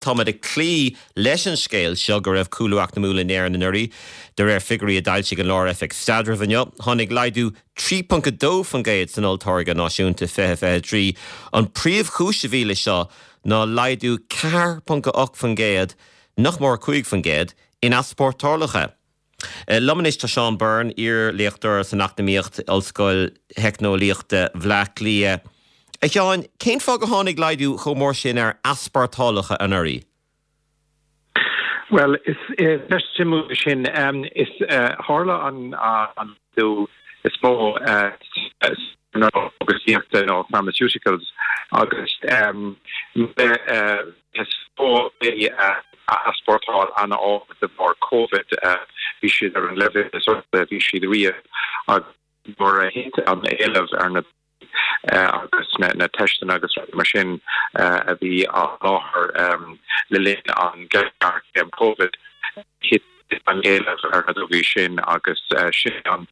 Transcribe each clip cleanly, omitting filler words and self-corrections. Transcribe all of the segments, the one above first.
Táimid ag cloí leis an scéal seo go raibh cúlú eacnamúil in Éirinn anuraidh, de réir figiúirí a d'fhoilsigh an Lár-Oifig Staidrimh inniu. Tháinig laghdú 3.2% san olltáirgeadh náisiúnta 2023. An príomhchúis a bhí leis seo ná laghdú 4.8%, nach mór 5%, in easpórtálacha. Liom anois tá Seán Byrne, iar-léachtóir san Eacnamaíocht, Ollscoil Theicneolaíochta Bhleá Cliath. A Sheáin, cén fáth gur tháinig laghdú chomh mór sin ar easpórtálacha anuraidh? Bhuel, is ceist suimiúil sin. Is tharla an laghdú is mó san chógaisíochta nó pharmaceuticals agus is mó bhí easpórtáil an-ard de bharr Covid. Bhí siad ar an leibhéal is airde a bhí siad riamh agus nuair a thit an éileamh ar na agus na teisteanna agus rudaí mar sin a bhí á sholáthar le linn an ghéarchéim Covid, thit an éileamh ar na drugaí sin agus sin an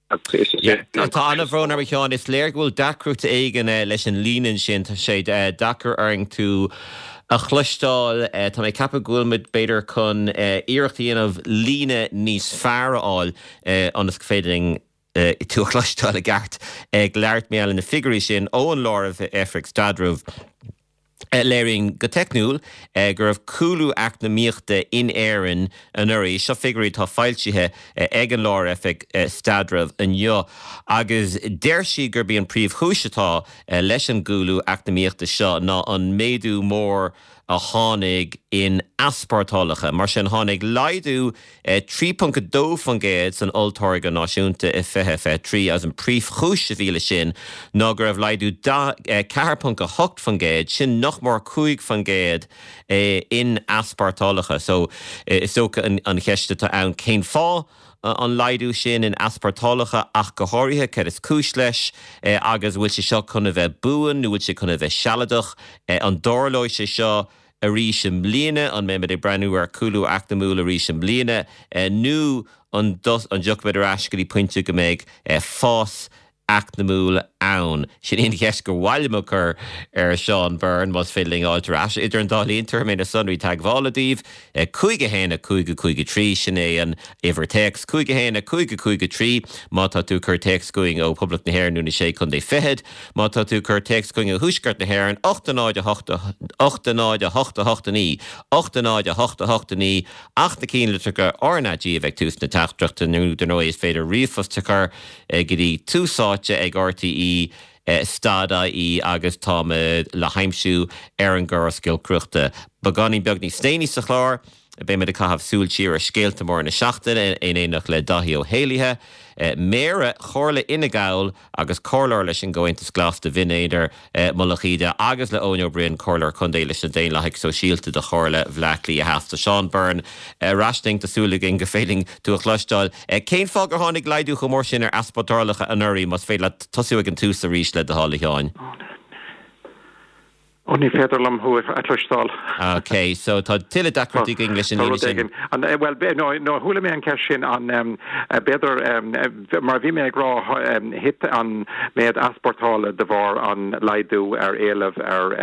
Tá an-bhrón orm a Sheáin, is léir go bhfuil deacracht éigin leis an líne ansin, tá sé deacair orainn tú a chloisteáil. Tá mé ag ceapadh go bhfuil muid b'fhéidir chun iarracht a dhéanamh líne níos fearr a fháil ionas go féidir linn tú a chloisteáil i gceart ag labhairt mar gheall ar na figiúirí sin ón Lár-Oifig Staidrimh. Léiríonn go teicniúil go raibh cúlú eacnamaíochta in Éirinn anuraidh. Seo figiúirí atá foilsithe ag an Lár-Oifig Staidrimh inniu agus deir siad gurb í an príomhchúis atá leis an gcúlú eacnamaíochta seo ná an méadú mór a tháinig in easpórtálacha. Mar sin, tháinig laghdú 3.2% san olltáirgeadh náisiúnta i 2023 agus an príomhchúis a bhí leis sin ná go raibh laghdú 4.8%, sin nach mór 5%, in easpórtálacha. So, is dócha an cheist atá ann cén fáth an laghdú sin in easpórtálacha ach go háirithe, cad is cúis leis agus an bhfuil sé seo chun a bheith buan nó bhfuil sé chun a bheith sealadach? An dtarlóidh sé seo arís i mbliana? An mbeimid ag breathnú ar chúlú eacnamúil arís i mbliana nó an dtiocfaimid ar ais go dtí pointe go mbeidh fás eacnamúil ann? Sin í an cheist gur mhaith liom a chur ar Seán Byrne, más féidir linn a fháilt ar ais. Idir an dá linn, tabharfaidh mé na sonraí teagmhála daoibh, 5 1 5 5 3, sin é an uimhir téacs, 5 1 5 5 3, má tá tú ag cur téacs chugainn ó Phoblacht na hÉireann nó na Sé Chontae Fichead. Má tá tú ag cur téacs chugainn ó Thuaisceart na hÉireann, 8 0 8 8 0 8 8 9, 8 0 8 8 9, ach na cinnlitreacha RnaG a bheith ag tús na teachtaireachta nó dar ndóigh is féidir ríomhphost a chur go dtí tús áite ag RTÉ stad IE agus táimid le haimsiú ar an gcóras giolcaireachta. Beagáinín beag níos déanaí sa chlár, beimid ag caitheamh súil siar ar scéalta móra na seachtaine in éineacht le Dáithí Ó hÉallaithe, Méara Chomhairle Fhine Gall agus Comhairleoir leis an gComhaontas Glas do Bhinn Éadair, Mullach Íde, agus le Eoin Ó Broin, Comhairleoir Contae leis na Daonlathaigh Sóisialta do Chomhairle Bhleá Cliath Theas. Tá Seán Byrne ar ais linn, tá súil againn gur féidir linn tú a chloisteáil. Cén fáth gur tháinig laghdú chomh mór sin ar easpórtálacha anuraidh, más féidir leat tosú ag an tús arís le do thoil, a Sheáin? Ó, ní féidir liom thú a chloisteáil. Ok, so tá tuilleadh deacrachtaí againn leis an líne sin. Tá rud éigin. Bhuel, no, no, chuala mé an ceist sin, an, b'fhéidir, mar a bhí mé ag rá, thit an méid easpórtála de bharr an laghdú ar éileamh ar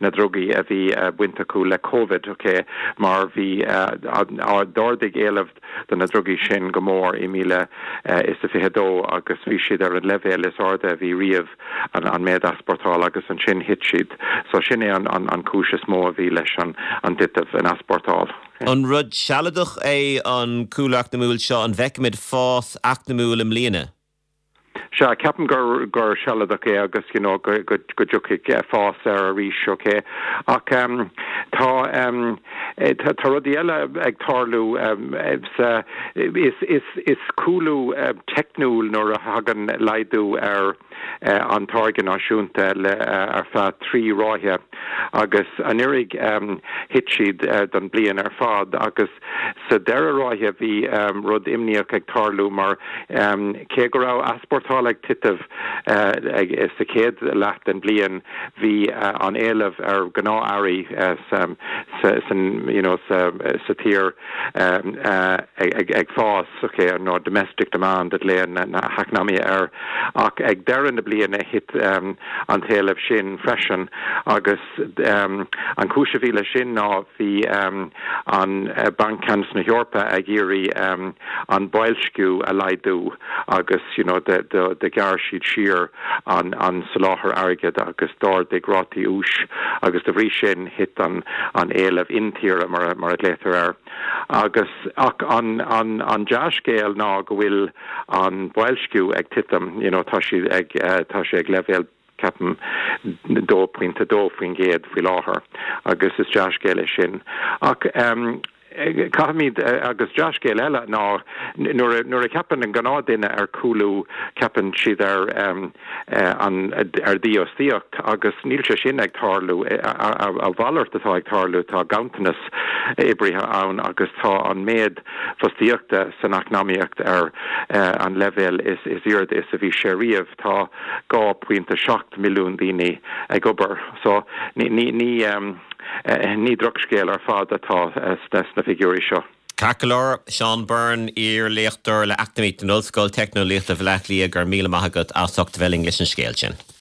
na drugaí a bhí baint acu le Covid, ok, mar bhí, d'ardaigh éileamh do na drugaí sin go mór i 2022 agus bhí siad ar an leibhéal is airde a bhí riamh. an méid easpórtála agus ansin thit siad. So sin é an cúis is mó a bhí leis an dtitim in easpórtáil. An rud sealadach é an cúlú eacnamúil seo? An bhfeicfimid fás eacnamúil i mbliana? Sea, ceapaim gur gur sealadach é agus you know go go go dtiocfaidh fás air arís, ok. Ach tá tá rudaí eile ag tarlú sa is is is cúlú teicniúil nuair a thagann laghdú ar an táirge náisiúnta le ar feadh 3 ráithe agus anuraidh thit siad don bliain ar fad agus sa dara ráithe bhí rud imníoch ag tarlú mar cé go raibh easpórtáil ag titim sa chéad leath den bhliain bhí an éileamh ar ghnáth-earraí sa tír ag fás, ok, nó domestic demand a ghlaonn na heacnamaithe air, ach ag deireadh na. na bliana thit an t-éileamh sin freisin agus an chúis a bhí leis sin ná bhí an Banc Ceannais na hEorpa ag iarraidh an boilsciú a laghdú agus you know do ghearr siad siar an soláthar airgid agus d'ardaigh rátaí úis agus de bhrí sin thit an éileamh intíre mar a ghlaotar air. Agus ach an an dea-scéal ná go bhfuil an boilsciú ag titim, you know tá sé ag tá sé ag leibhéal ceapaim 2.2% faoi láthair agus is dea-scéal é sin. Ach caithfimid, agus dea-scéal eile ná nuair a nuair a cheapann an gnáthduine ar chúlú ceapann siad ar an ar dhífhostaíocht agus níl sé sin ag tarlú. A mhalairt atá ag tarlú, tá ganntanas oibrithe ann agus tá an méid fostaíochta san eacnamaíocht ar an leibhéal is airde is a bhí sé riamh. Tá 2.7 milliún daoine ag obair. So ní ní drochscéal ar fad atá sna figiúirí seo. Ceart go leor, Seán Byrne, iar-léachtóir le Eacnamaíocht in Ollscoil Teicneolaíochta Bhaile Átha Cliath, go raibh míle maith agat as ucht a bheith linn leis an scéal sin.